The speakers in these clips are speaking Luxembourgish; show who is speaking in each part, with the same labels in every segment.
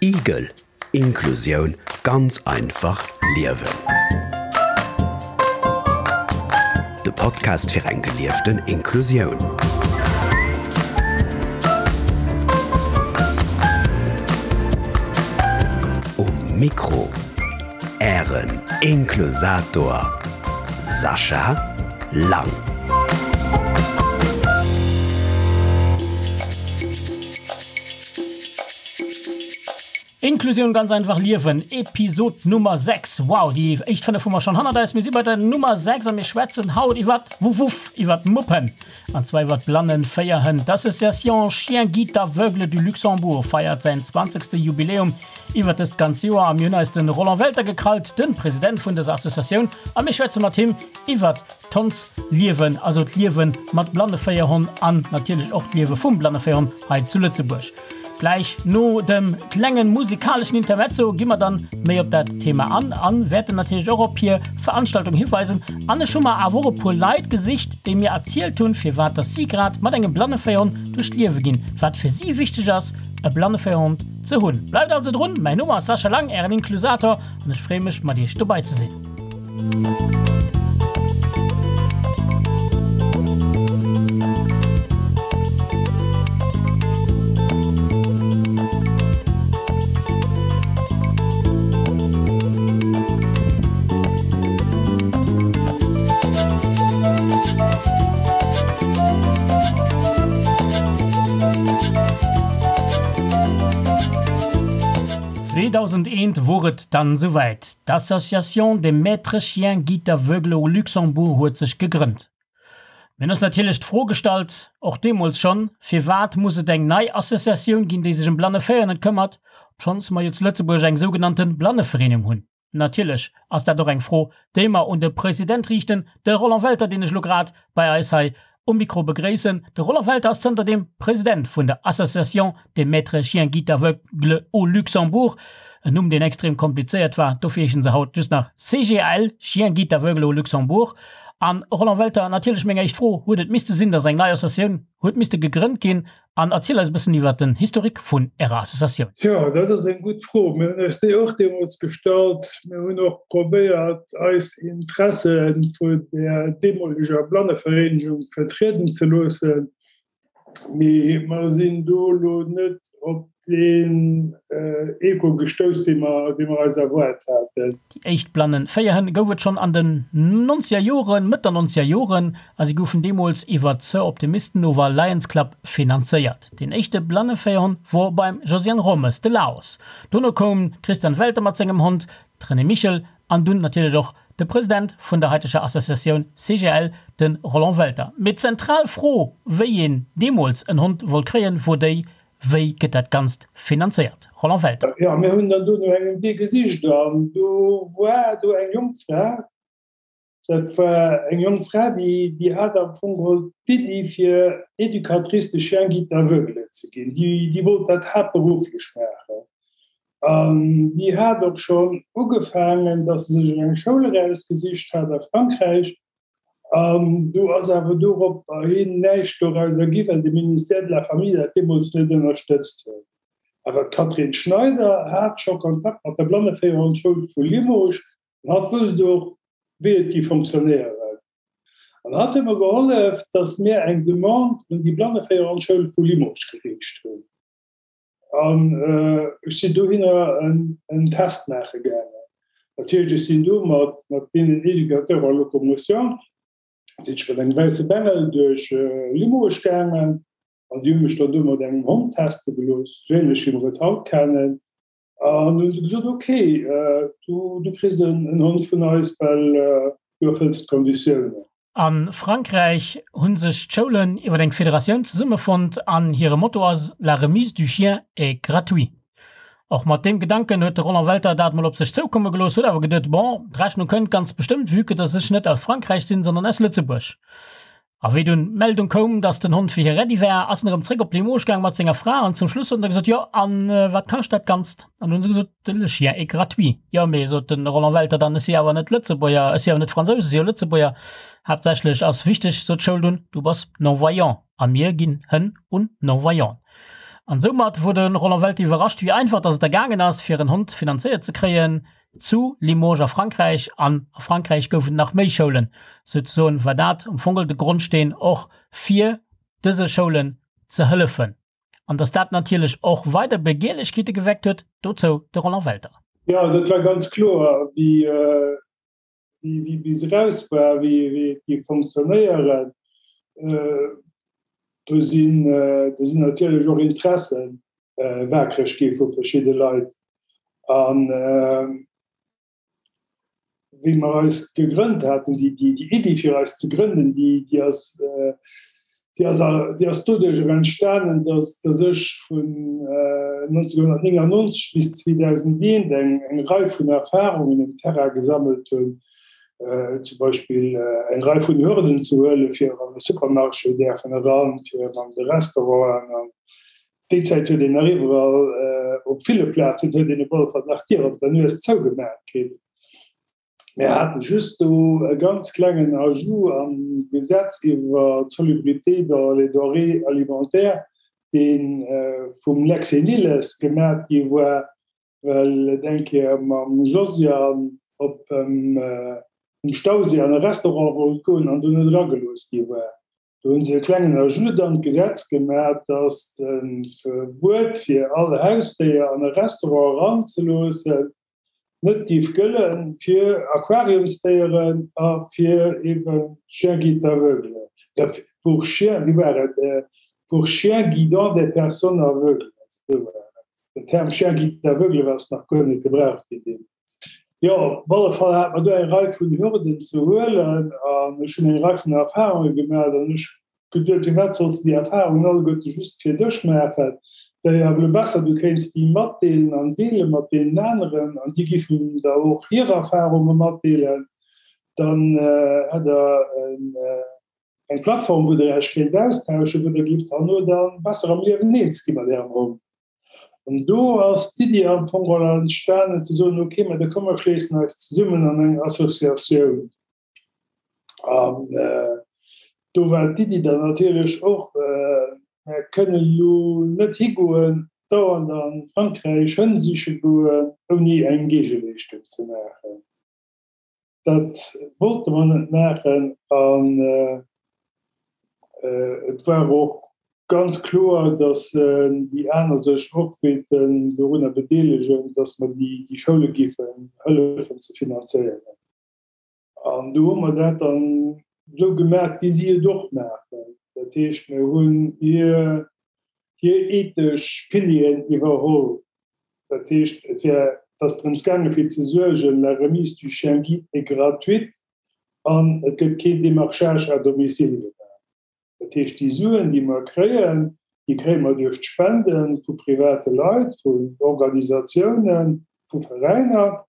Speaker 1: Igel, Inklusioun ganz einfach liewen. De Podcast fir eng gelieften Inklusioun. Um Mikro Ären Inklusator Sascha Lang.
Speaker 2: Inklusioun ganz einfach liewen, Episod Nummer 6. Wow, déi éischt 5 hu mer schonn hannert eis. Mir si bei der Nummer 6 a mir schwätzen haut iwwert Wuff Wuff, iwwert Muppen an zwar iwwert Blannenféierhënn. D'Association Chiens Guides Aveugles du Luxembourg feiert säin zwanzegste Jubiläum iwwert dëst ganz Joer a mir hunn eis de Roland Welter gekrallt, de President vun dëser Associatioun a mir schwätze mat him iwwert d'Hondsliewen, also d'Liewe mat Blanneféierhonn an natierlech och d'Liewe vum Blanneféierhonn hei zu Lëtzebuerg. Gläich no dem klengen musikaleschen Intermezzo gi mer dann méi op dat Thema an an wäerten natierlech och op hir Veranstaltung hiweisen. An ech hu mer awer och e puer Leit gesicht, déi mir erzielt hunn, firwat dass si grad mat engem Blanneféierhonn duerch d'Liewe ginn, wat fir si wichteg ass e Blanneféierhond ze hunn. Bleift also drun, mäin Numm ass Sascha Lang, ären Inklusator, an ech freeë mech mat iech dobei ze sinn. 2001 wor et dann souwäit, d'Association des Maîtres Chiens Guides Aveugles au Luxembourg huet sech gegrënnt. Mir hunn eis natierlech d'Fro gestallt, och deemools schonn, Firwat muss et eng nei Associatioun ginn, déi sech ëm Blanneféiernen këmmert, obschonns mer jo zu Lëtzebuerg eng sougenannte Blannevereenung hunn? Natierlech ass dat och eng Fro, déi mer un de President riichten, de Roland Welter, deen ech elo grad bei eis hei um Mikro begréissen. De Roland Welter ass zënterdeem President vun der Association des Maîtres Chiens Guides Aveugles au Luxembourg, en Numm, deen extrem komplizéiert war, dofir heeschen se haut just nach CGAL, Chiens Guides Aveugles au Luxembourg. An, Roland Welter, natierlech meng éischt Fro, Huet et misste sinn, datt eng nei Associatioun huet misste gegrënnt ginn, An erziel eis e bëssen iwwert den Historique vun Ärer Associatioun.
Speaker 3: Jo, dat ass eng gutt Fro. Mir hunn eis déi och deemools gestallt. Mir hunn och probéiert, eis Interesse vun der deemoleger Blannevereenegung vertrieden ze loossen. Mee mer sinn do elo net op deen Echo gestouss, dee mer, dee mer eis erwaart haten.
Speaker 2: Déi éischt blannen Féierhënn gouf et schonn an den nonzeger Joren, Mëtt der nonzeger Joren, a si goufen deemools iwwer d'Soroptimisten ower Lions Club finanzéiert. Deen éischte blanne Féierhond wor beim Josiane Rommes, de Laos. Dono koum d'Christiane Welter mat sengem Hond, d'Renée Michel an dunn natierlech och de President vun der haiteger Associatioun CGL, de Roland Welter. Mee d'zentral Fro, wéi een deemools en Hond wollt kréien, wor déi, Wéi gëtt dat Ganzt finanzéiert? Roland Welter.
Speaker 3: Jo, mir hunn dann do no engem Wee gesicht an do war do eng jonk Fra, dat war eng jonk Fra, déi, déi hat am Fong geholl d'Iddi fir Éducatrice de chiens guides aveugles ze ginn. Déi, déi wollt dat haaptberufflech maachen an déi hat och schonn ugefaangen, datt se sech eng Schoul erausgesicht hat a Frankräich An do ass awer doropperhin näischt dorauser gi, well de Ministère de la Famille dat deemools net ënnerstëtzt huet. Awer d'Catherine Schneider hat scho Kontakt mat der Blanneféierhondschoul vu Limoges an hatt wousst och, wéi et géif fonctionnéieren. An hatt huet mer gehollef, datt mir eng Demande un déi Blanneféierhondschoul vu Limoges geriicht hunn. An ech sinn dohinner en Test maache gaangen. Dat heescht, ech sinn do mat deenen Éducateurs en locomotion, sinn ech mat engem wäisse Bengel duerch Limoges gaangen an déi hu mech dann do mat engem Hond teste gelooss, esou ähnlech wéi mer et haut kennen. An du hunn se gesot, ok, du kriss en Hond vun eis, well du erfëlls d'Konditiounen.
Speaker 2: A Frankräich hu sech d'Schoulen iwwer eng Federatioun zesummefonnt an hire Motto ass La remise du chien est gratuit. Och mat deem Gedanken huet de Roland Welter dat mol op sech zoukomme gelooss, huet awer geduet, Bon, d'Rechnung kënnt ganz bestëmmt, vue que dass ech net aus Frankräich sinn, sondern aus Lëtzebuerg. A wéi dunn d'Meldung koum, dass den Hond fir hie ready war, ass en erëm zréck op Limoges gaang mat senger Fra an zum Schluss huet en da gesot, Jo, an wat kascht dat Ganzt? An du hunn se gesot, Le chien est gratuit. Jo, mee, sot de Roland Welter dann, ech si awer net Lëtzebuerger, ech si awer net Fransous, ech si jo Lëtzebuerger. Haaptsächlech ass wichteg, sot d'Schoul dunn, du bass non-voyant a mir ginn Hënn un Non-voyant. An soumat wor de Roland Welter iwwerrascht, wéi einfach dass et da gaangen ass, fir en Hond finanzéiert ze kréien zu Limoges a Frankräich. An a Frankräich goufen et nach méi Schoulen. Souzesoen war dat am Fong de Grondsteen och fir dëse Schoulen ze hëllefen. An dass dat natierlech och weider Begierlechkeete geweckt huet, dozou de Roland Welter.
Speaker 3: Jo, dat war ganz kloer, wéi wéi bis eraus war, wéi et géif fonctionnéieren. Do sinn do sinn natierlech och Interesse waakreg gi vu verschidde Leit. An wéi mer eis gegrënnt haten, déi Iddi fir eis ze grënnen, déi ass déi ass déi ass doduerch och entstanen, datt datt ech vun 1999 bis 2001 eng eng Rei vun Erfahrungen um Terrain gesammelt hunn, zum Beispill eng Rei vun Hürden ze huelen, fir an e Supermarché däerfen eran, fir an de Restauranten. An déi Zäit huet een nach iwwerall, op ville Plazen huet een op alle Fall nach d'Dier op der Nues zougemaach kritt. Mir hate just do e ganz klengen Ajout am Gesetz iwwer d'Salubrité dans les denrées alimentaires, dee vum Lex Nilles gemat gi war, well et eng Kéier mam Josiane op um Stauséi an e Restaurant wollt goen an do net eragelooss gi war. Do hu se e klengen Ajout an d'Gesetz gemat, dass de Verbuet fir all Hausdéier an e Restaurant eranzeloossen net géif gëlle fir Aquariumsdéieren a fir eben Chiens guides aveugles, pour chiens, wéi war et, pour chiens guidant des personnes aveugles, esou war et. Den Term chien guide aveugle ass nach guer net gebraucht ginn deemools. Jo, op alle Fall hat mer do eng Rei vun Hürden ze huelen an ech hunn eng Rei vun Erfahrunge gemaach an ech Geduet, firwat solls de déi Erfahrungen alleguerte just fir dech maachen? Wär jo awer elo besser, du kéints déi matdeelen an deele mat deenen aneren an déi giffen der och hir Erfahrunge matdeelen. Dann hätt der eng Plattform, wou der Iech kéint austauschen, wou der gifft herno da besser am Liewen eens gi mat ärem Hond. An do ass d'Iddi am Fong geholl entstanen ze soen, ok, mä da komm mer schléissen eis zesummen an eng Associatioun. An do war d'Iddi dann natierlech och, Mir kënnen elo net higoen, dauernd a Frankräich Hënn siche goen, ouni eng Géigeleeschtung ze maachen. Dat wollte mer net maachen. An et war och ganz kloer, datt déi aner sech och wéilten dorunner bedeelegen, datt mer déi Schoule géifen hëllefen ze finanzéieren. An do hu mer dat dann esou gemaach, wéi si et och maachen. Dat heescht, mir hunn hir, hir ethesch Pilieren iwwerholl. Dat heescht, et wär, et ass drëms gaangen, fir ze suergen, la remise du chien guide est gratuite an et gëtt keen Démarchage à domicile gemaach. Dat heescht, déi Suen, déi mer kréien, déi kréie mer duerch d'Spende vu private Leit, vun Organisatiounen, vu Veräiner.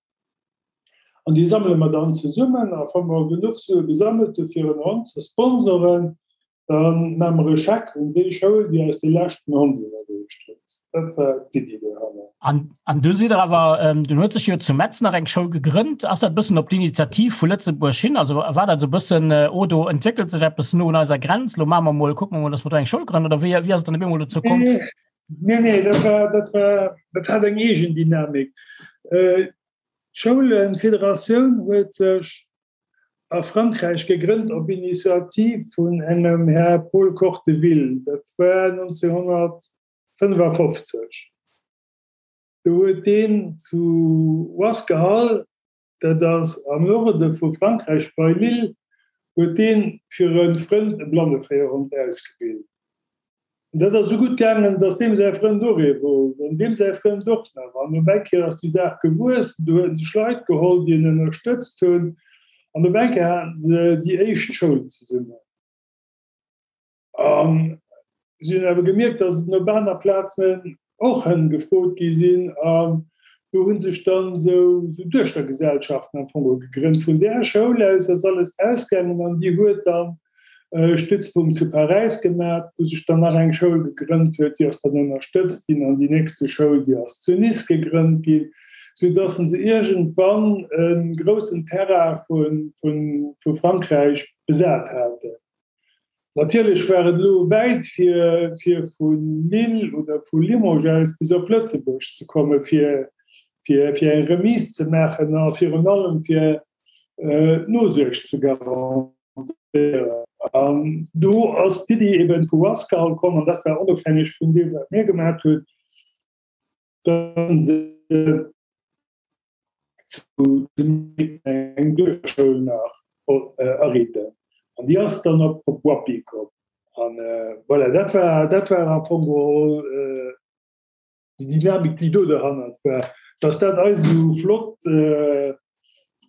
Speaker 3: An déi sammele mer dann zesummen. A wa mer genuch Sue gesammelt hu fir en Hond ze sponsoren, da maache mer e Scheck un déi Schoul, déi eis dee leschten Hond iwwerreecht huet. Dat war d'Iddi dohanner.
Speaker 2: An du sidd der awer, dunn huet sech jo zu Metz nach eng Schoul gegrënnt. Ass dat e bëssen op d'Initiativ vu Lëtzebuerg hin? Also war dat esou e bëssen, oh do entwéckelt sech eppes no un eiser Grenz, lo maache mer mol, kucke mer mol, datt mer do eng Schoul grënnen? Oder wéi ass et dann op eemol dozou komm?
Speaker 3: Nee, nee, dat war, dat war, dat hat eng eegen Dynamik. D'Schoulenfederatioun huet sech a Frankräich gegrënnt op Initiativ vun engem Här Paul Corteville. Dat war 1955. Do huet deen zu Wasquehal, dat ass am Norde vu Frankräich bei Lille, huet deen fir e Frënd e Blanneféierhond ausgebilt. An dat ass esou gutt gaangen, datt deem säi Frënd och ee wollt an deem säi Frënd och nach. An op eng Kéier ass déi Saach gewuess. Du huet en sech Leit geholl, déi en ënnerstëtzt hunn. An op eng Kéier haten se déi éischt Schoul zesummen. A si hunn awer gemierkt, datt et op aner Plazen och Hënn gefrot gi sinn. An do hu sech dann esou Duechtergesellschaften am Fong gegrënnt. Vun där Schoul aus ass alles ausgaangen an déi huet dann e Stützpunkt zu Paräis gemat, wou sech dann nach eng Schoul gegrënnt huet, déi ass dann ënnerstëtzt ginn an déi nächste Schoul, déi ass zu Nice gegrënnt ginn, soudass se iergendwann e groussen Terrain vu Frankräich besat haten. Natierlech war et elo wäit fir fir vu Lille oder vu Limoges aus bis op Lëtzebuerg ze komme fir fir fir eng Remise ze maachen a virun allem fir d'Nosuerg ze garantéieren. An do ass d'Iddi eben vu Wasquehal komm, an dat war onofhängeg vun deem wat mir gemaat hunn, datt se zu eng Duerfschoul nach ariiten. An déi ass dann op Woippy komm. An voilà, dat war, dat war am Fong geholl déi Dynamik, déi do derhannert war. Dass dat eis esou flott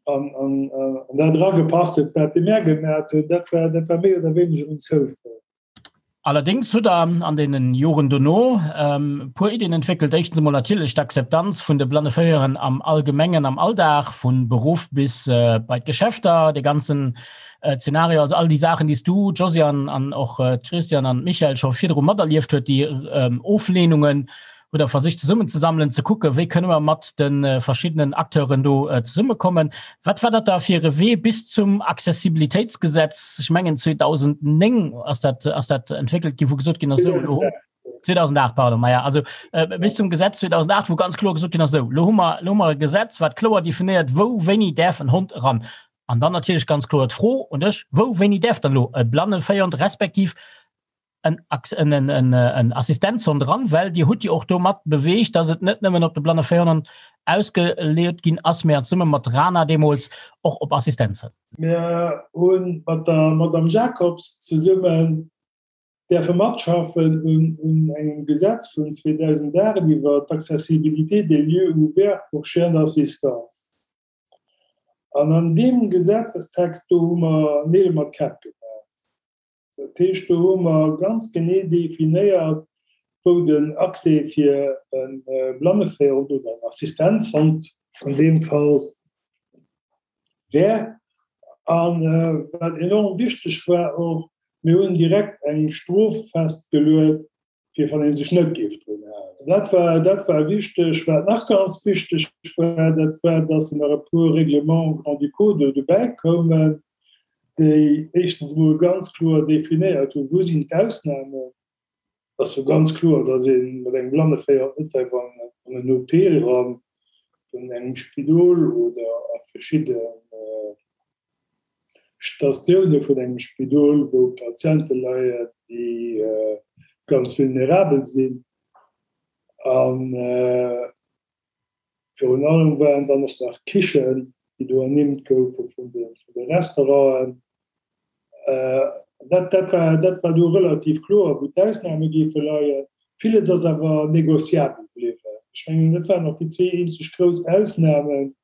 Speaker 3: an, an, an dat eragepasst huet, wat de Mär gemat huet, dat war, dat war méi oder wéineger en Zoufall.
Speaker 2: Allerdéngs hutt Der an deenen Joren dono e puer Iddien entwéckelt. Éischtens emol natierlech d'Akzeptanz vun de Blanneféierern am Allgemengen am Alldag, vu Beruff bis bei d'Geschäfter, dee ganzen Zeenario, also all déi Saachen, déi s du, Josiane, an och d'Christiane an d'Michèle scho virdru materlieft huet, déi Oflehnungen, hutt Der versicht zesummenzesammelen, ze kucken, wéi kënne mer mat de verschiddenen Acteuren do zesummekommen. Wat war dat da fir e Wee bis zum Accessibilitéitsgesetz? Ech mengen 2009 ass dat, ass dat entwéckelt ginn, wou gesot ginn ass, esou elo hu, 2008, pardon, maja, also bis zum Gesetz 2008, wou ganz kloer gesot ginn ass, esou elo hu mer, elo hu mer e Gesetz, wat kloer definéiert, wou wéini däerf en Hond eran. An dann natierlech ganz kloer d'Fro un dech, Wou wéini däerf dann elo e Blanneféierhond respektiv en, en, en, en Assistenzhond dran, well Dir hutt jo och domat beweegt, dass et net nëmmen op de Blanneféierhond ausgeleet ginn ass, mä zesumme mat RANA deemools och op Assistenzhënn.
Speaker 3: Mir hu mat der Madame Jacobs zesummen däerfe matschaffen un un engem Gesetz vun 2008 iwwer d'Accessibilité des lieux ouverts pour chiens d'assistance. An an deem Gesetzestext do hu mer Neel mat Käpp gemaach. Dat heescht, do hu mer ganz genee definéiert, wou den Accès fir e Blanneféierhond oder en Assistenzhond an deem Fall wär. A wat enorm wichteg war och, mir hunn direkt eng Strof festgeluet, fir wann ee sech net géif drun halen. Dat war, dat war wichteg. Wat nach ganz wichteg war, dat war, dass nach e puer Règlements grand-ducaux do dobäi koumen, déi éischtens emol ganz kloer definéiert hunn, wou sinn d'Ausnamen. Et ass jo ganz kloer, dass ee mat engem Blanneféier net däerf an en OP eran vun engem Spidol oder a verschidde Statioune vun engem Spidol, wou Patiente leien, déi ganz vulnerabel sinn. A virun allem waren dann och nach d'Kichen, déi do ernimmt goufe vun de Restauranten. Dat, dat war, dat war do relativ kloer, wou d'Ausname géife leien. Villes ass awer négociabel bliwwen. Ech mengen, dat waren och déi zwee eenzeg grouss Ausnamen.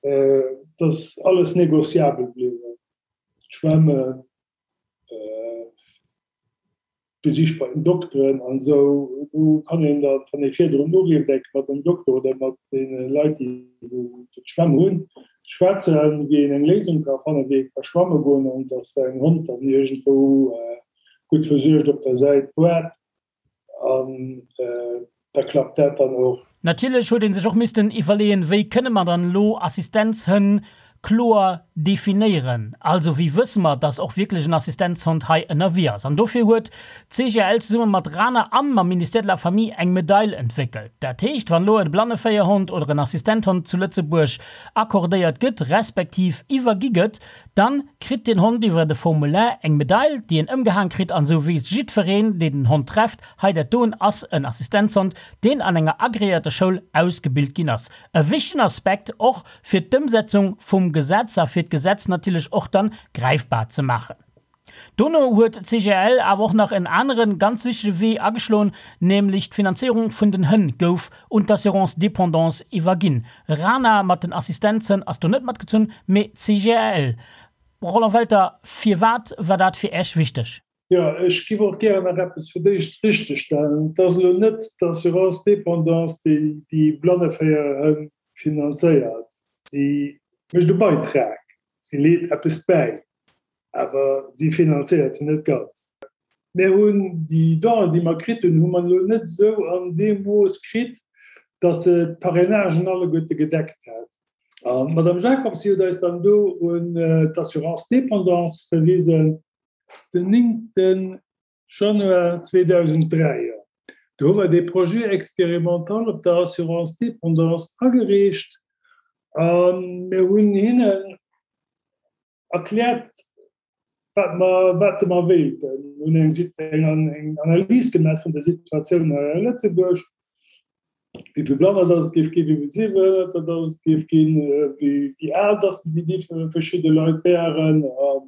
Speaker 3: Et ass alles négociabel bliwwen, d'Schwämmen, d'Besich bei den Dokteren an esou. Do kann een da, wann ee virdrun urifft, enke mat dem Dokter oder mat deene Leit, déi wou d'Schwämm hunn, schwätzen, wéi een eng Léisung ka fannen, wéi ee ka schwamme goen an datt säin Hond dann iergendwou gutt versuergt op der Säit waart. An da klappt dat dann och.
Speaker 2: Natierlech huet ee sech och missten iwwerleeën, wéi kënne mer dann elo Assistenzhënn kloer definéieren? Also wéi wësse mer, dass och wierklech en Assistenzhond hei ënnerwee ass? An dofir huet d'CGL zesumme mat RANA an mam Ministère de la Famille eng Medail entwéckelt. Dat heescht, wann elo e Blanneféierhond oder en Assistenthond zu Lëtzebuerg accordéiert gëtt, respektiv iwwergi gëtt, Dann kritt den Hond iwwert e Formulaire eng Medail, déi en ëmgehaang kritt an esou weess jiddfereen, deen den Hond trefft, hei dat doen ass en Assistenzhond, deen an enger agreéierter Schoul ausgebilt ginn ass. E wichtegen Aspekt och fir d'Ëmsetzung vum Gesetz a fir d'Gesetz natierlech och dann gräifbar ze maachen. Dono huet d'CGL awer och nach en anere ganz wichtege Wee ageschloen, nämlech d'Finanzéierung vun den Hënn gouf un d'Assurance dépendance iwwerginn. RANA mat den Assistenzhënn ass do net matgezunn, mee d'CGL. Roland Welter, firwat war dat fir Äech wichteg?
Speaker 3: Jo, ech giff och gären nach eppes fir d'éischt richtegstellen. Et ass elo net d'Assurance dépendance, déi déi Blanneféierhënn finanzéiert. Si mécht e Beitrag, si leet eppes bäi. Awer si finanzéiert se net ganz. Mir hunn déi Donen, déi mer kritt hunn, hu mer elo net esou an deem Mooss kritt, datt se d'Parrainagen alleguerte gedeckt hätt. An d'Madame Jacobs, si huet eis dann do un d'Assurance dépendance verwisen. Den 9. Januar 2003, jo. Do hu mer dee Projet expérimental op der Assurance dépendance agereecht a mir hunn hinnen erkläert, wat mer, wat mer wéilten. Mir hunn eng, eng Analys gemaach vun der Situatioun hei a Lëtzebuerg, wéi vill Blanner dass et géif ginn, wéi vill Sehbehënnerter dass et géif ginn, wéi al dass déi verschidde Leit wären a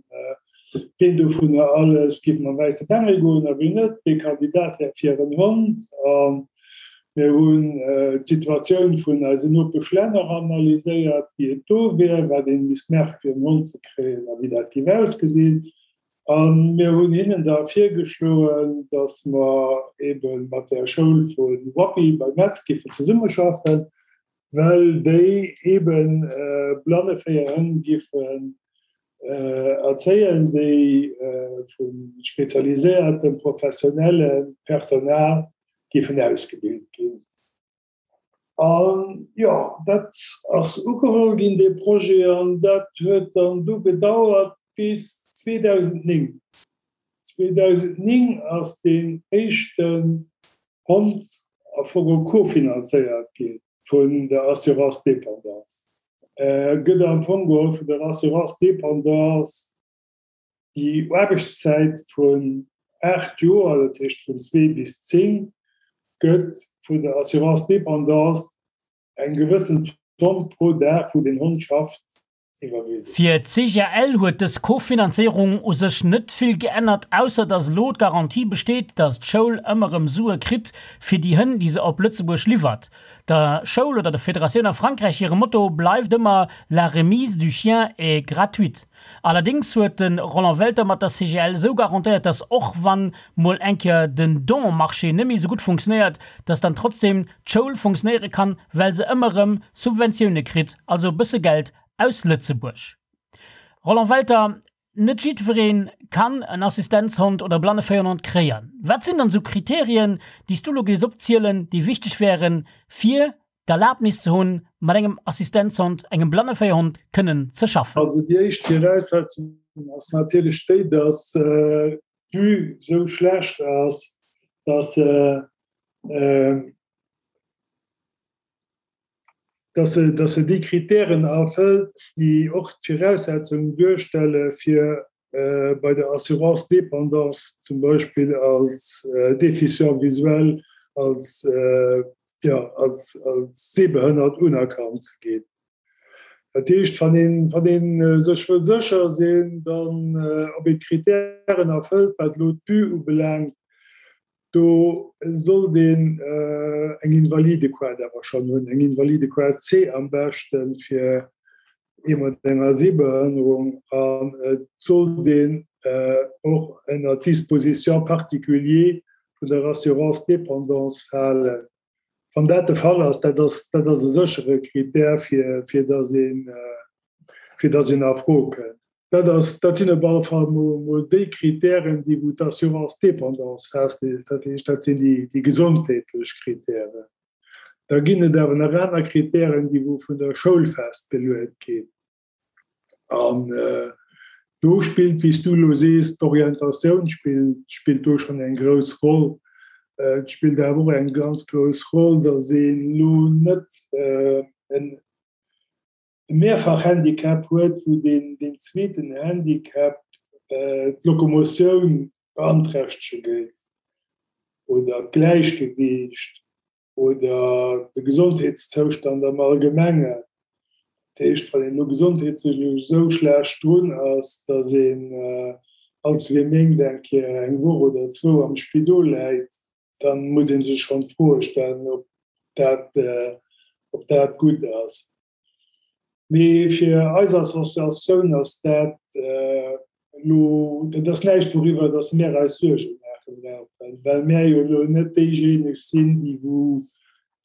Speaker 3: ween dovunner alles géif mam wäisse Bengel goen a ween net, wee Kandidat wär fir en Hond. A mir hunn d'Situatioun vun eisen Nopeschlänner analyséiert, wéi et do wär, wat ee misst maache fir en Hond ze kréien a wéi dat géif ausgesinn. A mir hunn hinnen da virgeschloen, datt mer ebe mat der Schoul vu Woippy bei Metz géifen zesummeschaffen, well déi ebe Blanneféierhënn géifen erzéien, déi vu spezialiséiertem, professionellem Personal géifen ausgebilt ginn. An jo, dat ass ugeholl ginn, dee Projet, an dat huet dann du gedauert bis 2009. 2009 ass deen éischten Hond a Fong cofinanzéiert gi vun der Assurance dépendance. Gëtt am Fong geholl vun der Assurance dépendance Déi Aarbechtszäit vun 8 Joer, dat heescht vun 2 bis 10, gëtt vun der Assurance dépendance eng gewëssen Zomm pro Dag, wou den Hond schafft, iwwerwisen.
Speaker 2: Fir d'CGL huet dës Kofinanzéierung u sech net vill geännert, ausser datt elo d'Garantie besteet, datt d'Schoul ëmmer erëm Sue kritt fir déi Hënn, déi se op Lëtzebuerg liwwert. Der Schoul oder der Federatioun a Frankräich hire Motto bleift ëmmer La remise du chien est gratuite. Allerdéngs huet de Roland Welter mat der CGL esou garantéiert, datt och wann mol eng Kéier den Don-Marché net méi esou gutt funktionéiert, datt dann trotzdem d'Schoul funktionéiere kann, well se ëmmer erëm Subventioune kritt, also e bësse Geld aus Lëtzebuerg. Roland Welter, Net jiddweree kann en Assistenzhond oder e Blanneféierhond kréien. Wat sinn dann esou Kriterien, déi s du elo géifs opzielen, déi wichteg wären, fir d'Erlaabnis ze hunn, mat engem Assistenzhond, engem Blanneféierhond kënnen ze schaffen?
Speaker 3: Also déi éischt Viraussetzung ass natierlech déi, dass d'Vue esou schlecht ass, dass se dass se dass se déi Kritären erfëllt, déi och d'Viraussetzung duerstelle fir bei der Assurance dépendance zum Beispill als Déficient visuel, als jo, als, als sehbehënnert unerkannt ze ginn. Dat heescht, wann een, wann ee sech wëll sécher sinn, dann, ob een d'Kritären erfëllt, wat elo d'Vue ubelaangt, do sollt een eng Invalidequart awer schonn hunn, eng Invalidequart C am beschten, fir ee mat enger Sehbehënnerung, an et sollt een och ënner d'Dispositions particuliers vun der Assurance dépendance falen. Wann dat de Fall ass, dat ass, dat ass e séchere Kritär, fir, fir dass een, fir dass een a Fro kënnt. Dat ass, dat sinn op alle Fall mol, mol déi Kritären, déi wou d'Assurance dépendance festleet. Dat heescht, dat sinn déi, déi gesondheetlech Kritären. Da ginn et awer nach aner Kritären, déi wou vun der Schoul festgeluet ginn. An do spillt, wéi s du elo sees, d'Orientatioun spillt, spillt do schonn eng grouss Roll. Et spillt awer och eng ganz grouss Roll, datt een elo net e Mehrfach-Handicap huet, wou deen, deen zweeten Handicap d'Lokomotioun beanträchtege géif oder d'Gläichgewiicht. oder de Gesondheetszoustand am Allgemengen. Dat heescht, wann een elo gesondheetlech esou schlecht drun ass, datt een all zwee Méint eng Kéier eng Woch oder zwou am Spidol läit, da muss ee sech schonn d'Froe stellen, ob dat, ob dat gutt ass. Mee fir eis Associatioun ass dat elo, dat ass näischt wouriwwer datt mär eis Suerge maache brauchen, well mär jo elo net déijéineg sinn, déi wou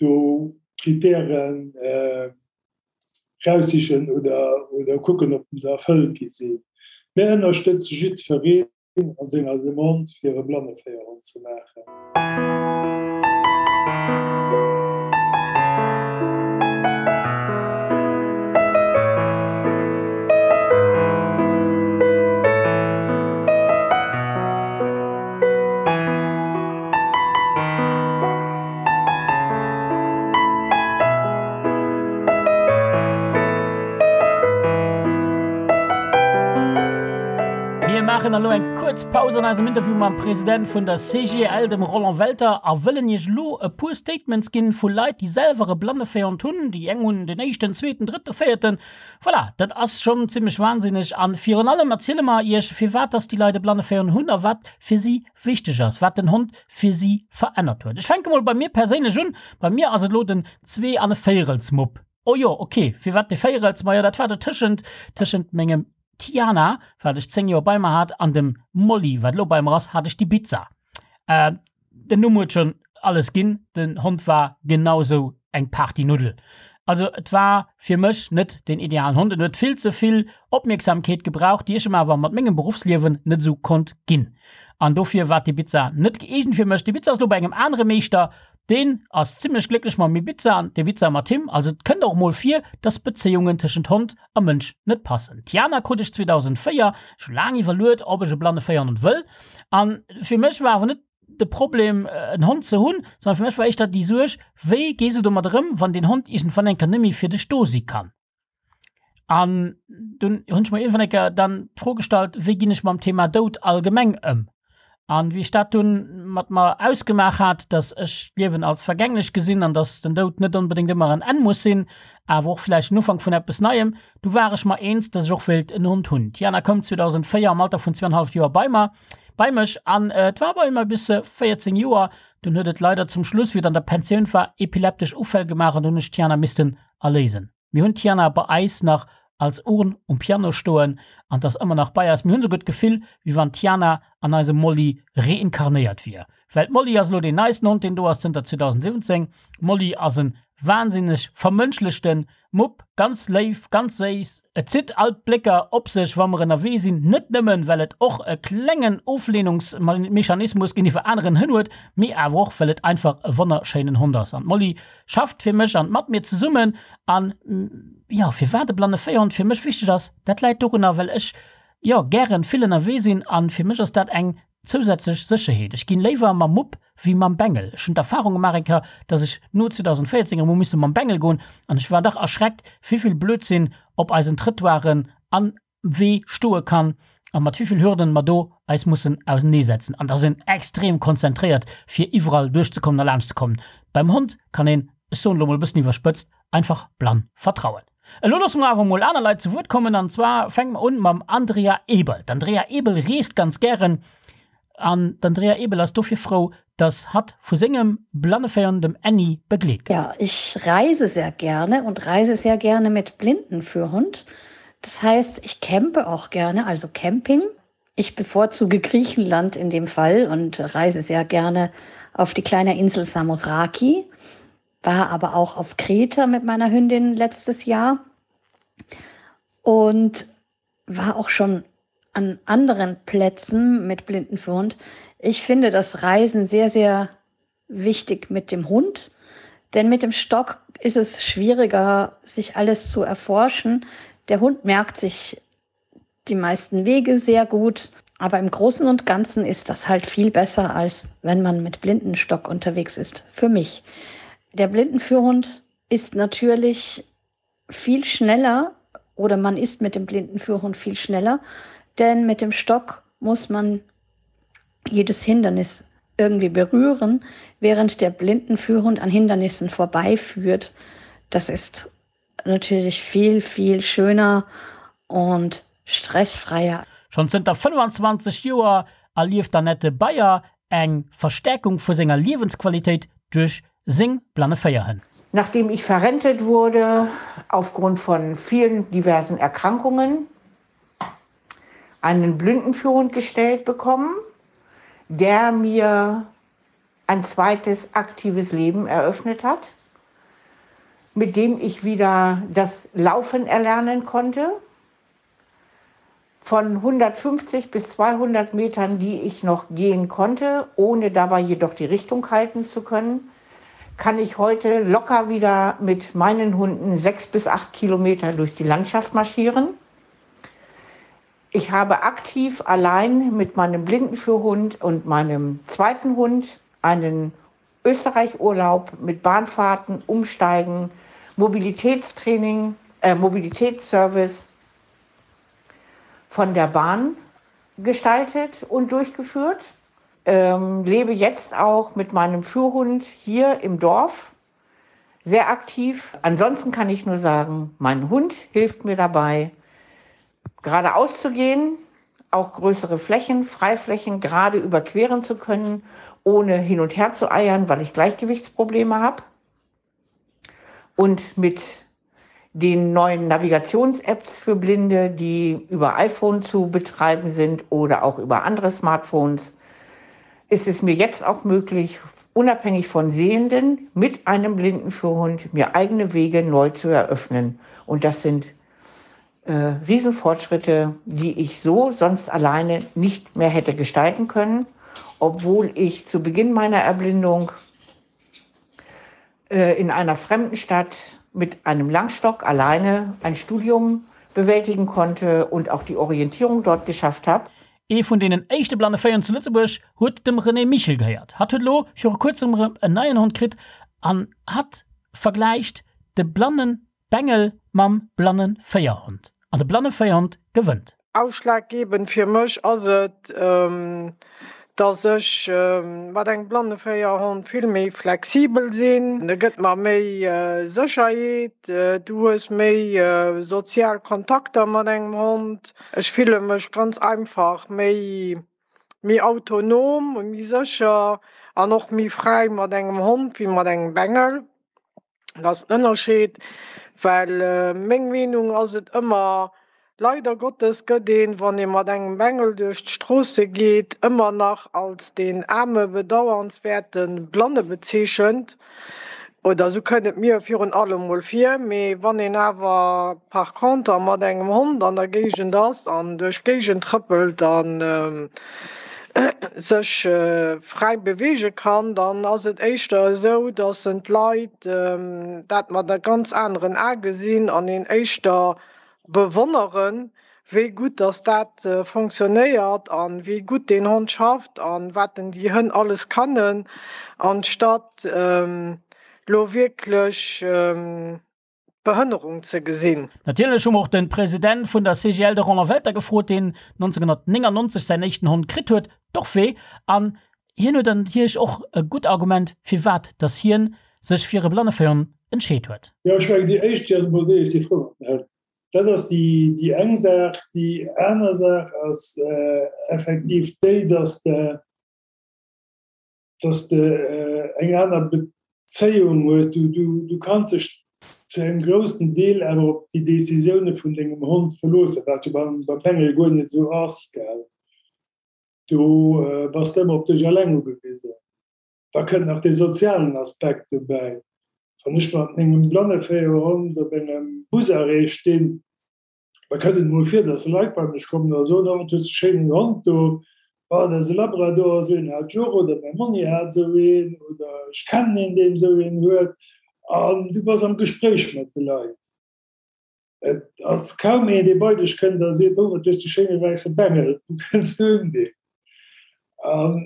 Speaker 3: do Kritären raussichen oder oder kucken, ob se erfëllt gi sinn. Mär ënnerstëtze jiddwereen. an senger Demande fir e Blanneféierhond ze maachen.
Speaker 2: maachen elo eng kuerz Paus an eisem Interview mam President vun der CGL, dem Roland Welter, a wëllen Iech elo e puer Statements ginn vu Leit, déi selwer e Blanneféierhond hunn. Déi eng hunn den éischten, zweeten, drëtten, véierten. Voilà, dat ass schonn zimmlech wahnsinneg. A virun allem erziele mer Iech, firwat dass déi Leit e Blanneféierhond hunn a wat fir si wichteg ass, wat den Hond fir si verännert huet. Ech fänke mol bei mir perséinlech un. Bei mir ass et elo den Zwee an e Véierelsmupp. Oh jo, ok, firwat de Véierels? Majo, dat war dotëschent, tëschent mengem Tiana, wat ech 10 Joer bei mer hat, an dem Molly, wat elo bei mer ass, hat ech d'Ibiza. Äh, den Numm huet schonn alles ginn, den Hond war genau sou eng Partynuddel. Also et war fir mech net den idealen Hond, en huet vill ze vill Opmierksamkeet gebraucht, déi ech em awer mat mengem Beruffsliewen net esou konnt ginn. An dofir war d'Ibiza net gëeegent fir mech. D'Ibiza ass elo bei engem anere Meeschter, Deen ass zimlech glécklech mam Ibiza an d'Ibiza mat him. Also et kënnt och mol vir, dass Bezéiungen tëschent Hond a Mënsch net passen. D'Tiana krut ech 2004, ech hu laang iwwerluet, ob ech e blanne Féierhond wëll. An fir mech war awer net de Problem en Hond ze hunn, sondern fir mech war éischter déi Suerg, wéi gees du domat erëm, wann deen Hond iergendwann eng Kéier net méi fir dech do si kann. An dunn hunn ech mer iergendwann eng Kéier dann d'Fro gestallt, wéi ginn ech mam Thema Doud allgemeng ëm? An wéi ech dat dunn mat mer ausgemaach hat, dass ech d'Liewen als vergänglech gesinn an dass den Doud net onbedéngt ëmmer en Enn muss sinn, awer och vläicht en Ufank vun eppes Neiem, du war ech mer eens, dass ech och wéilt en Hond hunn. D'Jana koum 2004 am Alter vun zweieinhalf Joer bei mer, bei mech an et war bei mer bis 14 Joer. Dunn huet et leider zum Schluss, wéi et an der Pensioun war, epileptesch Ufäll gemaach an dunn hunn ech d'Jana missten erléisen. Mir hunn d'Tiana bei eis nach als Urn um Piano stoen an 't ass ëmmer nach bei eis. Mir hunn souguer d'Gefill, wéi wann d'Tiana an eisem Molly reinkarnéiert wier. Well d'Molly ass elo deen neisten Hond, deen do ass zënter 2017. D'Molly ass en wahnsinneg vermënschlechten Mupp, ganz léif, ganz séiss. Et zitt all d'Blécker op sech, wa mer ënnerwee sinn, net nëmmen, well et och e klengen Oflehnungsmechanismus géintiwwer aneren Hënn huet, mee awer och, well et einfach e wonnerschéinen Hond ass. An d'Molly schafft fir mech an mat mir zesummen. An, jo, firwat e blanne Féierhond fir mech wichteg ass, dat läit dorunner, well ech, jo, gären vill ënnerwee sinn an fir mech ass dat eng Zousätzlech Sécherheet, Ech ginn léiwer mam Mupp wéi mam Bengel. Ech hunn d'Erfahrung gemaach eng Kéier, dass ech no 2014 erëm hu misse mam Bengel goen an ech war dach erschreckt, wéivill Blödsinn op eisen Trëttoiren an Wee stoe kann a mat wéivill Hürden mer do eis mussen auseneesetzen. An da ass een extrem konzentréiert fir iwwerall duerchzekommen a laanschtzekommen. Beim Hond kann een, ech soen elo mol e bëssen iwwerspëtzt, einfach blann vertrauen. Elo loosse mer awer mol aner Leit zu Wuert kommen an zwar fänke mer un mam Andrea Ebel. D'Andrea Ebel reest ganz gären an d'Andrea Ebel ass dofir frou, dass hatt vu sengem Blanneféiern, dem Annie, begleet gëtt.
Speaker 4: Ja, ich reise sehr gerne und reise sehr gerne mit Blindenführhund. Das heißt, ich campe auch gerne, also Camping. Ich bevorzuge Griechenland in dem Fall und reise sehr gerne auf die kleine Insel Samothraki war aber auch auf Kreta mit meiner Hündin letztes Jahr und war auch schon an anderen Plätzen mit Blindenführhund. Ich finde das Reisen sehr, sehr wichtig mit dem Hund, denn mit dem Stock ist es schwieriger, sich alles zu erforschen. Der Hund merkt sich die meisten Wege sehr gut, aber im Großen und Ganzen ist das halt viel besser, als wenn man mit Blindenstock unterwegs ist. Für mich. Der Blindenführhund ist natürlich viel schneller oder man ist mit dem Blindenführhund viel schneller, denn mit dem Stock muss man jedes Hindernis irgendwie berühren, während der Blindenführhund an Hindernissen vorbeiführt. Das ist natürlich viel, viel schöner und stressfreier.
Speaker 2: Schonn zënter 25 Joer erlieft d'Annette Beyer eng Verstäerkung vu senger Liewensqualitéit duerch seng blanne Féierhënn.
Speaker 5: Nachdem ich verrentet wurde aufgrund von vielen diversen Erkrankungen, einen Blindenführhund gestellt bekommen, der mir ein zweites aktives Leben eröffnet hat, mit dem ich wieder das Laufen erlernen konnte. Von 150 bis 200 Metern, die ich noch gehen konnte, ohne dabei jedoch die Richtung halten zu können, kann ich heute locker wieder mit meinen Hunden sechs bis acht Kilometer durch die Landschaft marschieren. Ich habe aktiv allein mit meinem Blindenführhund und meinem zweiten Hund einen Österreichurlaub mit Bahnfahrten, Umsteigen, Mobilitätstraining, äh, Mobilitätsservice von der Bahn. gestaltet und durchgeführt. Ähm, lebe jetzt auch mit meinem Führhund hier im Dorf sehr aktiv. Ansonsten kann ich nur sagen, mein Hund hilft mir dabei, geradeaus zu gehen, auch größere Flächen, Freiflächen gerade überqueren zu können, ohne hin und her zu eiern, weil ich Gleichgewichtsprobleme habe. Und mit den neuen Navigations-Apps für Blinde, die über iPhone zu betreiben sind oder auch über andere Smartphones, ist es mir jetzt auch möglich, unabhängig von Sehenden mit einem blinden Führhund mir eigene Wege neu zu eröffnen. Und das sind äh, Riesenfortschritte, die ich so sonst alleine nicht mehr hätte gestalten können, obwohl ich zu Beginn meiner Erblindung äh, in einer fremden Stadt mit einem Langstock alleine ein Studium bewältigen konnte und auch die Orientierung dort geschafft habe.
Speaker 2: Ee vun deenen éischte blanne Féier zu Lëtzebuerg huet dem René Michel gehéiert. Hatt huet elo viru kuerzem erëm en neien Hond kritt an hatt vergläicht de blanne Bengel mam blanne Féierhond. An de blanne Féierhond gewënnt.
Speaker 6: Ausschlaggebend fir mech ass et, dass ech mat engem Blanneféierhond vill méi flexibel sinn. E gëtt mer méi Sécherheet, du hues méi sozial Kontakter mat engem Hond. Ech fille mech ganz einfach méi méi autonom, méi sécher an och méi fräi mat engem Hond wéi mat engem Bengel. Dat ass den Ënnerscheed, well meng Meenung ass et ëmmer, leider Gottes gëtt een, wann ee mat engem Bengel duerch d'Stroosse geet, ëmmer nach als deen aarme bedauernswäerte Blanne bezeechent, oder esou kënnt et mir virun allem mol vir. Mee wann een awer par conter mat engem Hond an der Géigend ass an duerch d'Géigend trëppelt an sech fräi beweege kann, dann ass et éischter esou, datt en d'Leit dat mat e ganz aneren A gesinn an een éischter bewonneren, wéi gutt datt dat fonctionnéiert an wéi gutt deen Hond schafft an wat en déi Hënn alles kannen, anstatt lo wierklech Behënnerung ze gesinn.
Speaker 2: Natierlech hu mer och de President vun der CGL, de Roland Welter, gefrot, deen 1999 säin éischten Hond kritt huet, d'Orphée, an hien huet natierlech och e gutt Argument, firwat dass hien sech fir e Blanneféierhond entscheet huet.
Speaker 3: Jo, ech mengen, déi éischt, déi ass emol déi, ech si frou mat den Hënn. Dat ass déi eng Saach. Déi aner Saach ass effektiv déi, dass de, dass de eng aner Bezéiung hues. Du, du, du kanns dech zu engem groussen Deel awer op déi Decisioune vun dengem Hond verloossen, wat jo beim, beim Bengel guer net esou ass, gell. Do bass de ëmmer op dech eleng ugewisen. Da kënnt nach dee sozialen Aspekt dobäi. Wann ech mat mengem Blanneféierhond op engem Busarrêt stinn, Da kënnt et mol vir, dass Leit bei mech kommen a soen, oh, wat hues de schéinen Hond do, oh, dat ass e Labrador, esou een hat ech och, oder mäi Monni hat esou een, oder ech kennen een, deen esou een huet. An du bass am Gespréich mat de Leit. Et ass kaum een, dee bei dech kënnt a seet, oh, wat hues de schéine wäisse Bengel, wou kënns du un deen? An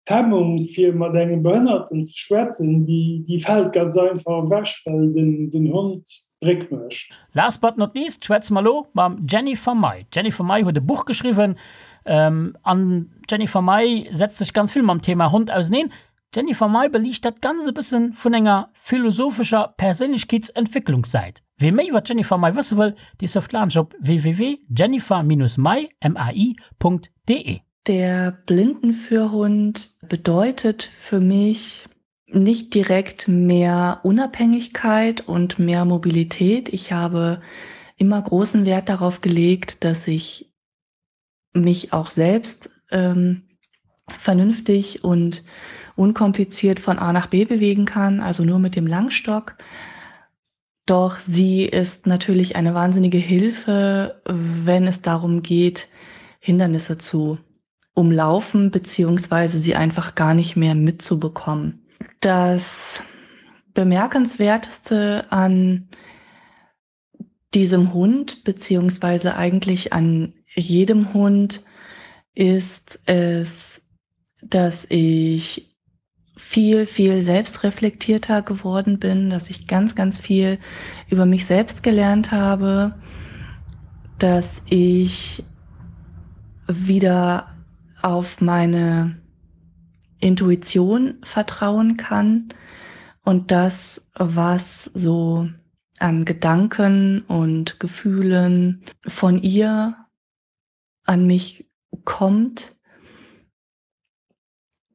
Speaker 3: D'Hemmung fir mat engem Behënnerten ze schwätzen, déi fält ganz einfach ewech, well den Hond d'Bréck mécht.
Speaker 2: Last but not least schwätze mer elo mam Jennifer May. D'Jennifer May huet e Buch geschriwwen an d'Jennifer May setzt sech ganz vill mam Thema Hond auseneen. D'Jennifer May beliicht dat Ganzt e bësse vun enger philosophescher Perséinlechkeetsentwécklungssäit. Wee méi iwwer d'Jennifer May wësse wëll, dee surft laanscht op www.jennifer-may.de.
Speaker 7: Der Blindenführhund bedeutet für mich nicht direkt mehr Unabhängigkeit und mehr Mobilität. Ich habe immer großen Wert darauf gelegt, dass ich mich auch selbst ähm, vernünftig und unkompliziert von A nach B bewegen kann, also nur mit dem Langstock. Doch sie ist natürlich eine wahnsinnige Hilfe, wenn es darum geht, Hindernisse zu umlaufen beziehungsweise sie einfach gar nicht mehr mitzubekommen. Das bemerkenswerteste an diesem Hund beziehungsweise eigentlich an jedem Hund ist es, dass ich viel, viel selbstreflektierter geworden bin, dass ich ganz, ganz viel über mich selbst gelernt habe, dass ich. wieder auf meine Intuition vertrauen kann und das, was so an Gedanken und Gefühlen von ihr an mich kommt,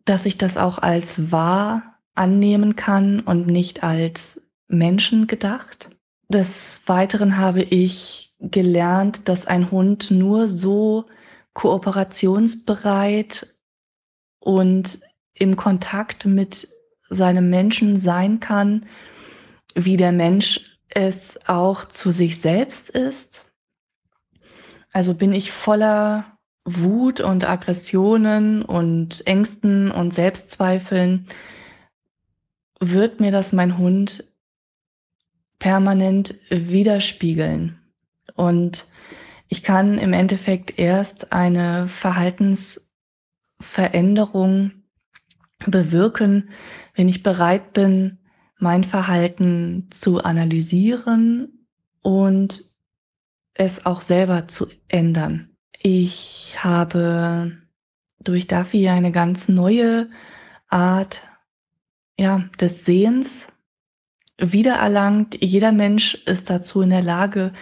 Speaker 7: dass ich das auch als wahr annehmen kann und nicht als Menschen gedacht. Des Weiteren habe ich gelernt, dass ein Hund nur so kooperationsbereit und im Kontakt mit seinem Menschen sein kann, wie der Mensch es auch zu sich selbst ist. Also bin ich voller Wut und Aggressionen und Ängsten und Selbstzweifeln, wird mir das mein Hund permanent widerspiegeln. Und ich kann im Endeffekt erst eine Verhaltensveränderung bewirken, wenn ich bereit bin, mein Verhalten zu analysieren und es auch selber zu ändern. Ich habe durch Duffy eine ganz neue Art ja, des Sehens wiedererlangt. Jeder Mensch ist dazu in der Lage.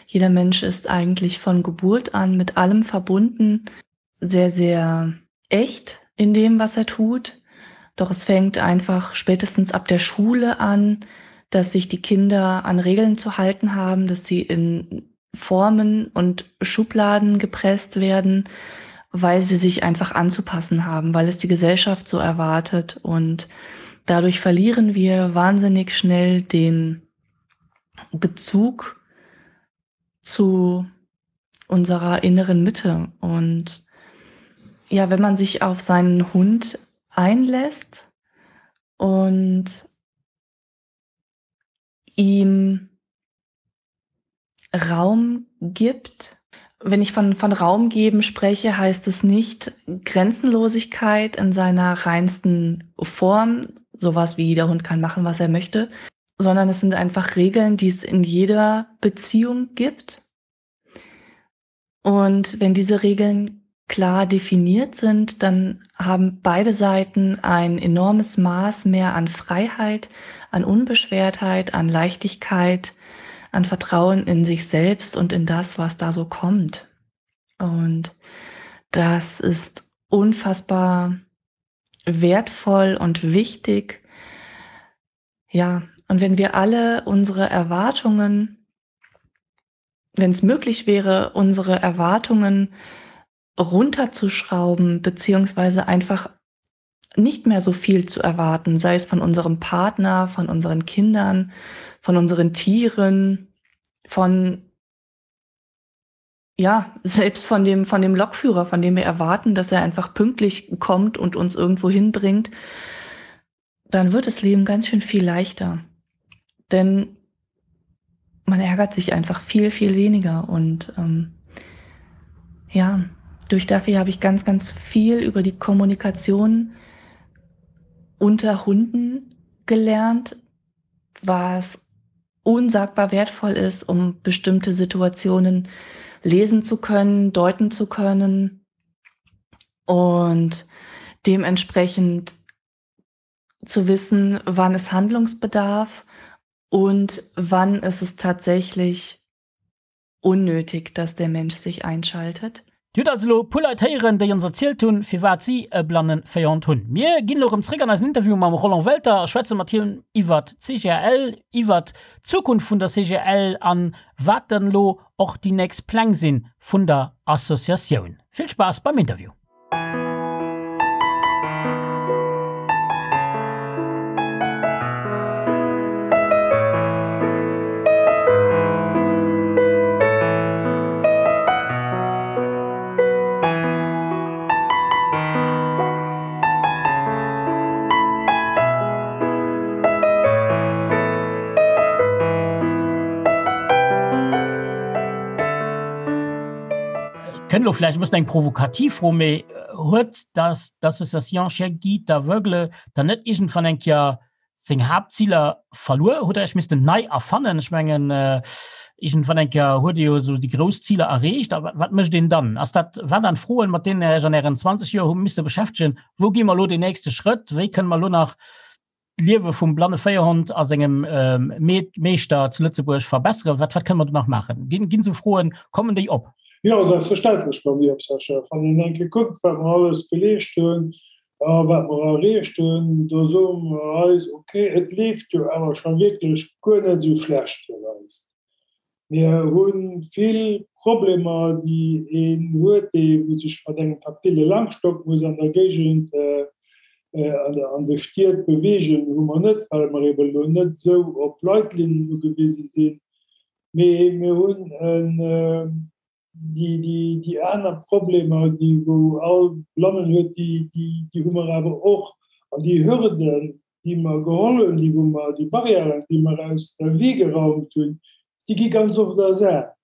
Speaker 7: Jeder Mensch ist eigentlich von Geburt an mit allem verbunden, sehr, sehr echt in dem, was er tut. Doch es fängt einfach spätestens ab der Schule an, dass sich die Kinder an Regeln zu halten haben, dass sie in Formen und Schubladen gepresst werden, weil sie sich einfach anzupassen haben, weil es die Gesellschaft so erwartet. Und dadurch verlieren wir wahnsinnig schnell den Bezug zu unserer inneren Mitte. Und ja, wenn man sich auf seinen Hund einlässt und ihm Raum gibt. Wenn ich von, von Raum geben spreche, heißt es nicht Grenzenlosigkeit in seiner reinsten Form, sowas wie der Hund kann machen, was er möchte, sondern es sind einfach Regeln, die es in jeder Beziehung gibt. Und wenn diese Regeln klar definiert sind, dann haben beide Seiten ein enormes Maß mehr an Freiheit, an Unbeschwertheit, an Leichtigkeit, an Vertrauen in sich selbst und in das, was da so kommt. Und das ist unfassbar wertvoll und wichtig. Ja, und wenn wir alle unsere Erwartungen, wenn es möglich wäre, unsere Erwartungen runterzuschrauben, beziehungsweise einfach nicht mehr so viel zu erwarten, sei es von unserem Partner, von unseren Kindern, von unseren Tieren, von ja, selbst von dem, von dem Lokführer, von dem wir erwarten, dass er einfach pünktlich kommt und uns irgendwo hinbringt, dann wird das Leben ganz schön viel leichter. Denn man ärgert sich einfach viel, viel weniger. Und ähm, ja, durch Duffy habe ich ganz, ganz viel über die Kommunikation unter Hunden gelernt, was unsagbar wertvoll ist, um bestimmte Situationen lesen zu können, deuten zu können und dementsprechend zu wissen, wann es Handlungsbedarf und wann ist es tatsächlich unnötig, dass der Mensch sich einschaltet.
Speaker 2: Dir hutt also elo e puer Leit héieren, déi ons erzielt hunn, firwat si e Blanneféierhond hunn. Mir ginn elo erëm zréck an eisen Interview mam Roland Welter a schwätze mat him iwwert d'CGL, iwwert d'Zukunft vun der CGL an wat dann elo och déi nächst Pläng sinn vun der Associatioun. Vill Spaass beim Interview! Kënnt elo vläicht e bëssen eng provokativ Fro, mee huet das d'Association Chiens Guides d'Aveugles dann net iergendwann eng Kéier seng Haaptziler verluer? Hutt Der Iech missten nei erfannen? Ech mengen. Iergendwann eng Kéier huet Dir jo esou déi grouss Ziler erreecht. A wat mécht een dann? Ass dat, waren dat Froen, mat deenen Der Iech an Ären 20 Joer hu misse beschäftegen? Wou gi mer elo deen nächste Schrëtt? Wéi kënne mer elo nach d'Liewe vum blanne Féierhond a sengem Meeschter zu Lëtzebuerg verbesseren? Wat, wat kënne mer do nach maachen? Ginn, ginn esou Froen, kommen déi op?
Speaker 3: Jo, selbstverständlech kommen déi op, Sascha. Wann een eng Kéier kuckt, wat mer alles geleescht hunn a wat mer erreecht hunn, do soe mer eis, ok, et leeft jo awer scho wierklech guer net esou schlecht fir eis. Mir hu vill Problemer, déi een huet, dee wou sech mat engem taktile Langstock muss an der Géigend, an de Stied beweegen, hu mer net, well mer eben elo net esou op Leitlinnen ugewise sinn. Mee mir hunn en Déi aner Problemer, déi wou all Blannen huet, déi hu mer awer och. An déi Hürden, déi mer geholl hunn, déi wou mer, déi Barrièren, déi mer aus dem Wee geraumt hunn, déi gi ganz oft ersat.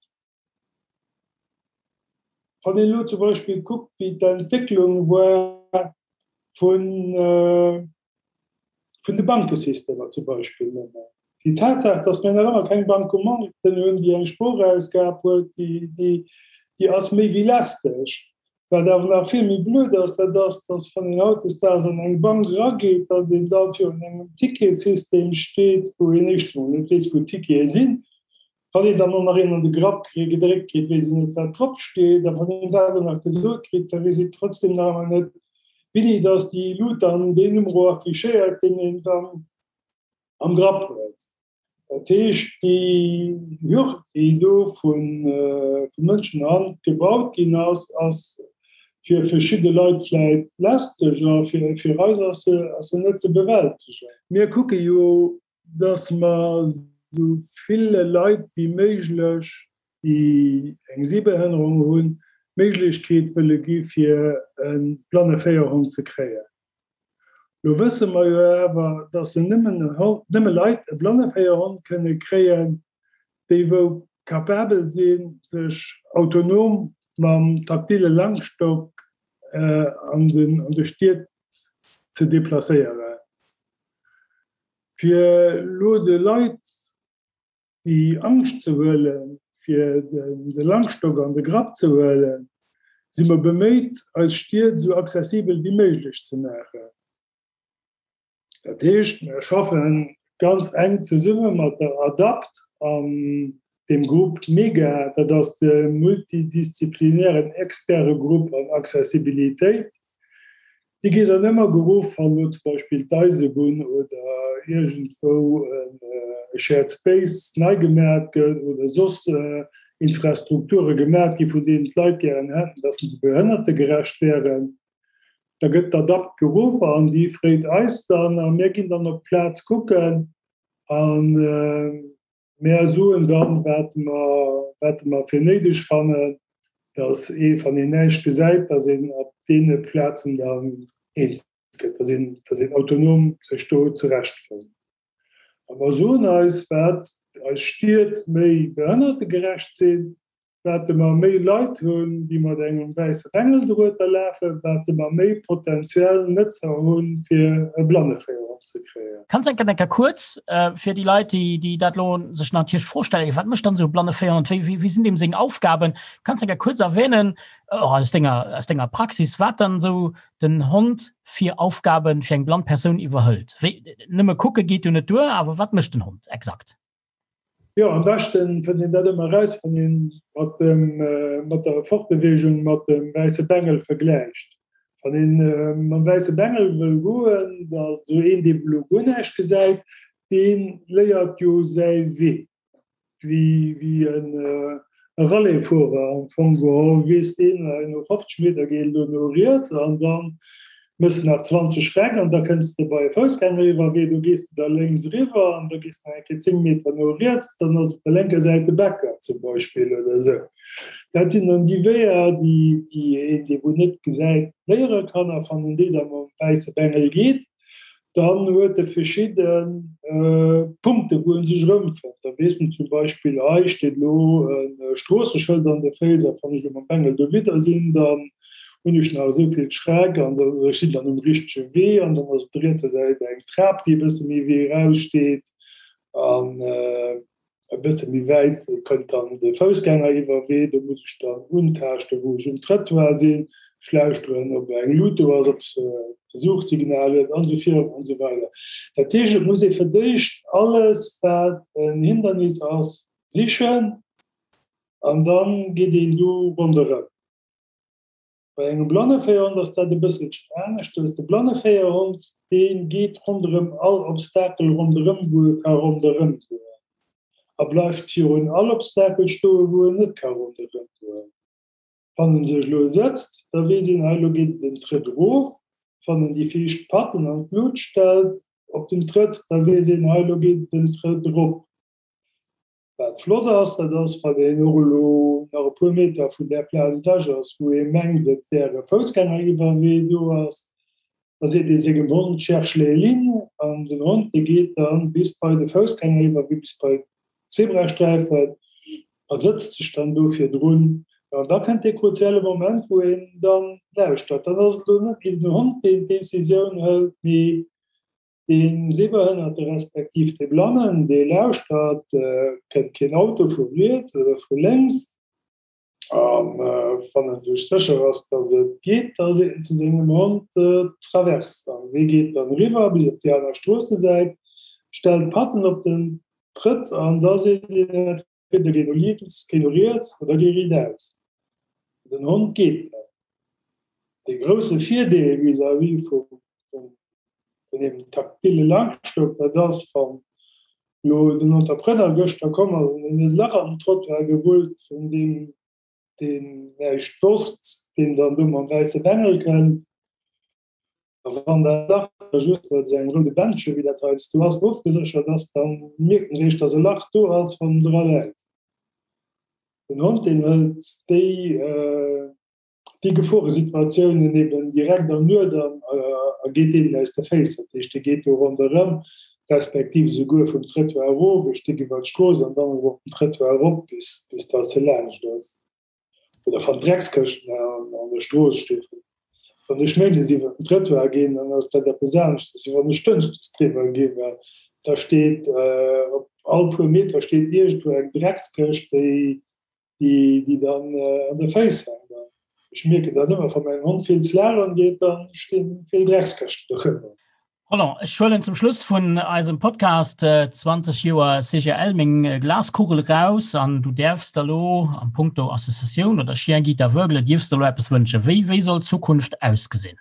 Speaker 3: Wann een elo zum Beispill kuckt, wéi d'Entwécklung war vun, vun de Bankesystemer zum Beispill nëmmen. Déi Tatsaach, datt mir nach ëmmer keng Bancomaten hunn, déi eng Sprochausgab huet, déi ass méi wéi lästeg. Wat awer nach vill méi blöd ass, dat ass, datt wann een hautdesdaags an eng Bank erageet, datt een da virun engem Ticketsystem steet, wou een éischtens emol net weess, wou d'Tickete sinn, Wann een dann och nach een an de Grapp gedréckt kritt, weess een net, wat drop steet. A wann een dat och nach gesot kritt, da weess een trotzdem nach ëmmer net, wéini dass déi Lut dann deen Numero affichéiert, deen een dann am Grapp huet. Dat heescht, déi Hürd, déi do vu Mënschenhand gebaut ginn ass, ass fir verschidde Leit vläit lästeg a fir eis ass se net ze bewältegen. Mir kucke jo dass mer esou ville Leit wéi méiglech, déi eng Sehbehënnerung hunn, d'Méiglechkeet wëlle gi fir e Blanneféierhond ze kréien. Lo wësse mer jo awer, dass se nëmmen nëmme Leit e Blanneféierhond kënne kréien, déi wou capabel sinn, sech autonom mam taktile Langstock an de Stied ze deplacéieren. Fir elo de Leit déi Angscht ze huelen, fir de Langstock an de Grapp ze huelen, si mer beméit, eis Stied esou accessibel wéi méiglech ze maachen. Dat heescht, mir schaffe ganz enk zesumme mat der ADAPT an deem Grupp MEGA, dat ass de multidisziplinären Expertegrupp an Accessibilitéit. Déi ginn dann ëmmer geruff, wann elo zum Beispill d'Eisebunn oder iergendwou e Shared Space nei gemaat gëtt oder soss Infrastrukture gemaat gi vun deenen d'Leit gären hätten, dass se behënnertegerecht wären. Da gëtt d'ADAPT geruff an déi freet eis dann a mir ginn dann op d'Plaz kucken an Mär soen dann, wat mer, wat mer fir néideg fannen, dass ee, wann een näischt gesäit, dass een op deene Plazen dann eens gëtt, dass een, dass een autonom sech do zurechtfënnt. A mer soen eis, wat eis Stied méi behënnertegerecht sinn, Wate mer méi Leit hunn, déi mat engem wäisse Bengel dorueter lafen, wate mer méi potenziell Nëtzer hunn, fir e Blanneféierhond ze kréien.
Speaker 2: Kanns enker enker kuerz fir déi Leit, déi déi dat elo sech natierlech d'Fro stellen, wat mécht dann esou e Blanneféierhond, wéi wéi sinn deem seng Aufgaben? Kanns enker kuerz erwähnen, och aus denger aus denger Praxis, wat dann esou den Hond fir Aufgaben fir eng blann Persoun iwwerhëlt? Wéi, nëmme kucke geet jo net duer, awer wat mécht den Hond exakt?
Speaker 3: Jo, am beschten fënnt een dat ëmmer eraus, wann een mat dem, mat der Fortbewegung mat dem wäisse Bengel vergläicht. Wann een mam wäisse Bengel wëll goen, da sou een, dee elo guer näischt gesäit, dee léiert jo säi Wee, wéi, wéi en e Rallyefuerer am Fong geholl, weess deen, no 50 Meter geet et elo no riets an dann Mëss nach 20 Stäck an da kënns de bei e Foussgängeriwwerwee, do gees de da lénks eriwwer an da gees de nach eng Kéier 10 Meter no riets, dann ass op der lénker Säit de Bäcker zum Beispill oder esou. Dat sinn dann déi Weeër, déi déi een, dee wou net gesäit, léiere kann. A wann en déi da mam wäisse Bengel geet, dann huet e verschidde Punkte wou en sech erëmfënnt. Da weess en zum Beispill, hei steet elo e Stroosseschëld an de Féiss a wann ech elo mam Bengel dowidder sinn, dann hunn ech nach esou vill Schreck an da ech sinn dann um richtege Wee an dann ass op der rietser Säit eng Trap, déi e bësse méi wéi eraus steet an. E bësse méi wäit kënnt dann de Foussgängeriwwerwee, do muss ech dann untaaschten, wou ech um Trëttoir sinn, ech lauschteren, ob eng Lut do ass, ob se e Suchsignal huet an esou virun an esou weider. Dat heescht, et muss ee fir d'éischt alles, wat en Hindernis ass, sichen an da geet een do ronderëm. Bei engem Blanneféierhond ass dat e bësselchen aneschtes. De Blanneféierhond, dee geet ronderëm all Obstakel ronderëm, wou e ka ronderëm goen, a bleift virun all Obstakel stoen, wou en net ka ronderëm goen. Wann en sech elo sëtzt, da weess een, hei elo geet et en Trëtt erof. Wann en déi viischt Patten an d'Lut stellt op den Trëtt, da weess een, hei elo geet et en Trëtt erop. Wat flott ass, dat ass, wann een och elo nach e puer Meter vun där Plaz ewech ass, wou ee mengt, et wär e Foussgängeriwwerwee do ass, da seet ee sengem Hond, Cherche les lignes, an den Hond, dee geet da bis bei de Foussgängeriwwerwee, bis bei d'Zebrasträifen a sëtzt sech dann do virdrun. An da kënnt dee kruzielle Moment, wou een dann lauschtert. Dann ass et elo net méi den Hond, deen d'Decisioun hëlt, mee Dee Sehbehënnerte respektiv dee Blannen, dee lauschtert, kënnt keen Auto vu riets oder vu lénks. A wann e sech sécher ass, datt et geet, da seet en zu sengem Hond, Traverse. An dee geet dann eriwwer bis op déi aner Stroossesäit, stellt d'Patten op den Trëtt an da seet een entweder géi no lénks, géi no riets oder géi riitaus. Den Hond geet dann. De grousse Virdeel vis-à-vis vum vun deem taktile Langstock, dat ass, wann elo den Entrepreneur gëschter komm ass an en huet e Lach an den Trottoir gerullt vun deem, deen näischt wosst, deen dann do mam wäisse Bengel kënnt, a wann dat Lach da just bei esou engem roude Bändche, wéi dat heiansdo ass, ofgeséchert ass, da mierkt en eréischt, dass e Lach do ass, wann en dra läit. Den Hond, deen hëlt déi. déi Geforesituatiounen eben direkt an Nuet an a geet deenen aus de Féiss. Dat heescht, dee geet do ronderëm, respektiv esouguer vum Trëttoir erof, e Stéck iwwer d'Strooss an dann erëm op den Trëttoir erop, bis, bis dass e laanscht ass. Oder wann Dreckskëschten an der Strooss stinn. Wann ech méindes iwwer den Trëttoir ginn, dann ass dat eppes aneschtes, wéi wann ech dënschdes driwwer ginn, well da steet op all puer Meter steet iergendwou eng Dreckskëscht, déi déi, déi dann an de Féiss hänkt. An ech mierken dat ëmmer, wa mäin Hond vill Slalom geet, dann stinn vill Dreckskëschten dorëmmer.
Speaker 2: Roland, ech huelen zum Schluss vun eisem Podcast 20 Joer CGL meng Glaskugel raus an du däerfs der lo am Punkto Associatioun oder Chien Guide Aveugle dierfs der lo eppes wënschen. Wéi, wéi soll d'Zukunft ausgesinn?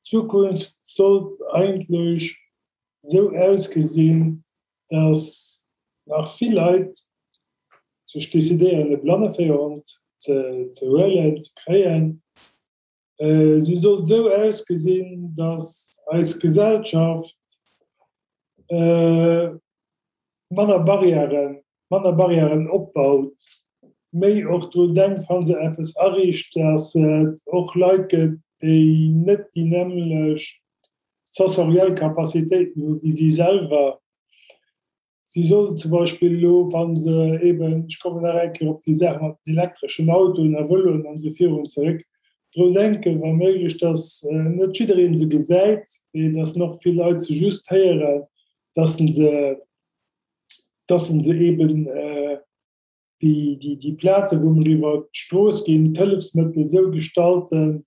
Speaker 3: D'Zukunft sollt eigentlech esou ausgesinn, dass nach vill Leit sech decidéieren, e Blanneféierhond ze huelen, ze kréien. Si sollt esou ausgesinn, dass eis Gesellschaft manner Barrièren, manner Barrièren opbaut, méi och drun denkt, wa se eppes ariicht, dass et och Leit gëtt, déi net déi nämmlecht sensoriell Capacitéiten hu wéi si selwer. Si soll zum Beispill elo, wa se eben, ech kommen nach eng Kéier op déi Saach mat den elektreschen Autoen a Vëloen an esou virun zeréck, drun denken, wa méiglech, datt net jidderee se gesäit, mee datt och vill Leit se just héieren, datt se, datt se eben déi, déi, déi Plazen, wou mer iwwer d'Strooss ginn, d'Hëllefsmëttel esou gestalten,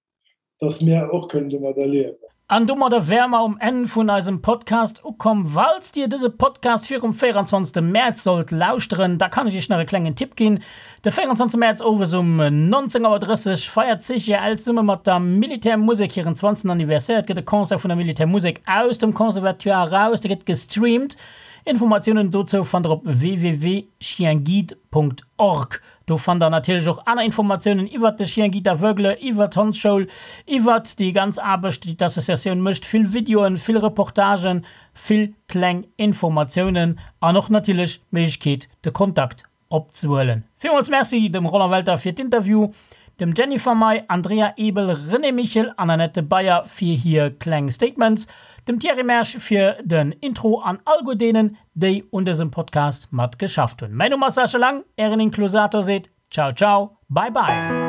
Speaker 3: dass mär och kënnen domadder liewen.
Speaker 2: An domadder wäre mer um Enn vun eisem Podcast ukomm. Falls Dir dëse Podcast virum 24. Mäerz sollt lauschteren, da kann ech Iech nach e klengen Tipp ginn. De 24. Mäerz owes um 19 Auer 30 feiert d'CGL zesumme mat der Militärmusek hiren 20. Anniversaire. Et gëtt e Concert vun der Militärmusek aus dem Conservatoire eraus, dee gëtt gestreamt. Informatiounen dozou fannt der op www.chienguide.org. Do fannt der natierlech och aner Informatiounen iwwert de Chien Guide Aveugle, iwwert d'Hondsschoul, iwwert déi ganz Aarbecht, déi d'Associatioun mécht, vill Videoen, vill Reportagen, vill kleng Informatiounen an och natierlech d'Méiglechkeet de Kontakt opzehuelen. Villmools Merci dem Roland Welter fir d'Interview, dem Jennifer May, Andrea Ebel, René Michel an Annette Beyer fir hir kleng Statements, dem Thierry Mersch fir den Intro an alleguer deenen, déi un dësem Podcast mat geschafft hunn. Mäin Numm ass Sascha Lang, ären Inklusator seet Ciao ciao, bye bye.